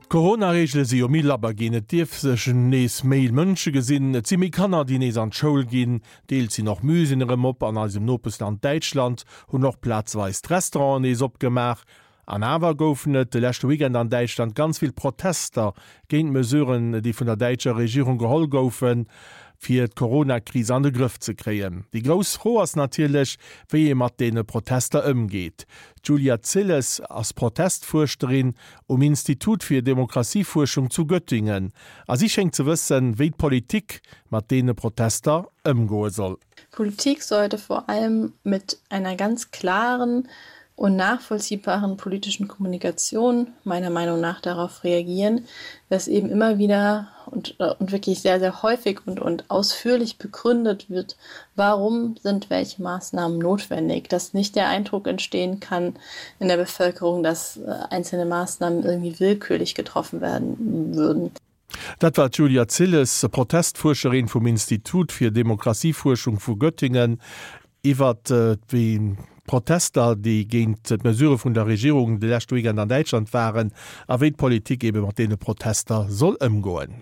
D'Corona-Reegele si jo méi labber ginn, et dierf sech nees méi Mënsche gesinn, et si méi Kanner, déi nees an d'Schoul ginn, deels sinn och Muséeën erëm op. An eisem Nopeschland Däitschland hunn och plazweis d'Restauranten nees opgemaach. An awer goufen et de leschte Weekend an Däitschland ganz vill Protester géint d'Mesuren, déi vun der däitscher Regierung geholl goufen, fir d'Corona-Kris an de Grëff ze kréien. Déi grouss Fro ass natierlech, wéi ee mat deene Protester ëmgeet. D'Julia Zilles ass Protestfuerscherin um Institut fir Demokratiefuerschung zu Göttingen a si schéngt ze wëssen, wéi d'Politik mat deene Protester ëmgoe soll. Politik sollte vor allem mit einer ganz klaren und nachvollziehbaren politischen Kommunikation meiner Meinung nach darauf reagieren, dass eben immer wieder und, äh, und wirklich sehr, sehr häufig und, und ausführlich begründet wird, warum sind welche Maßnahmen notwendig, dass nicht der Eindruck entstehen kann in der Bevölkerung, dass äh, einzelne Maßnahmen irgendwie willkürlich getroffen werden würden. Dat war d'Julia Zilles, Protestfuerscherin vum Institut fir Demokratiefuerschung vu Göttingen, iwwer déi Protester, déi géint d'Mesurë vun der Regierung de leschte Weekend an Däitschland waren, a wéi d'Politik ebe mat deene Protester soll ëmgoen.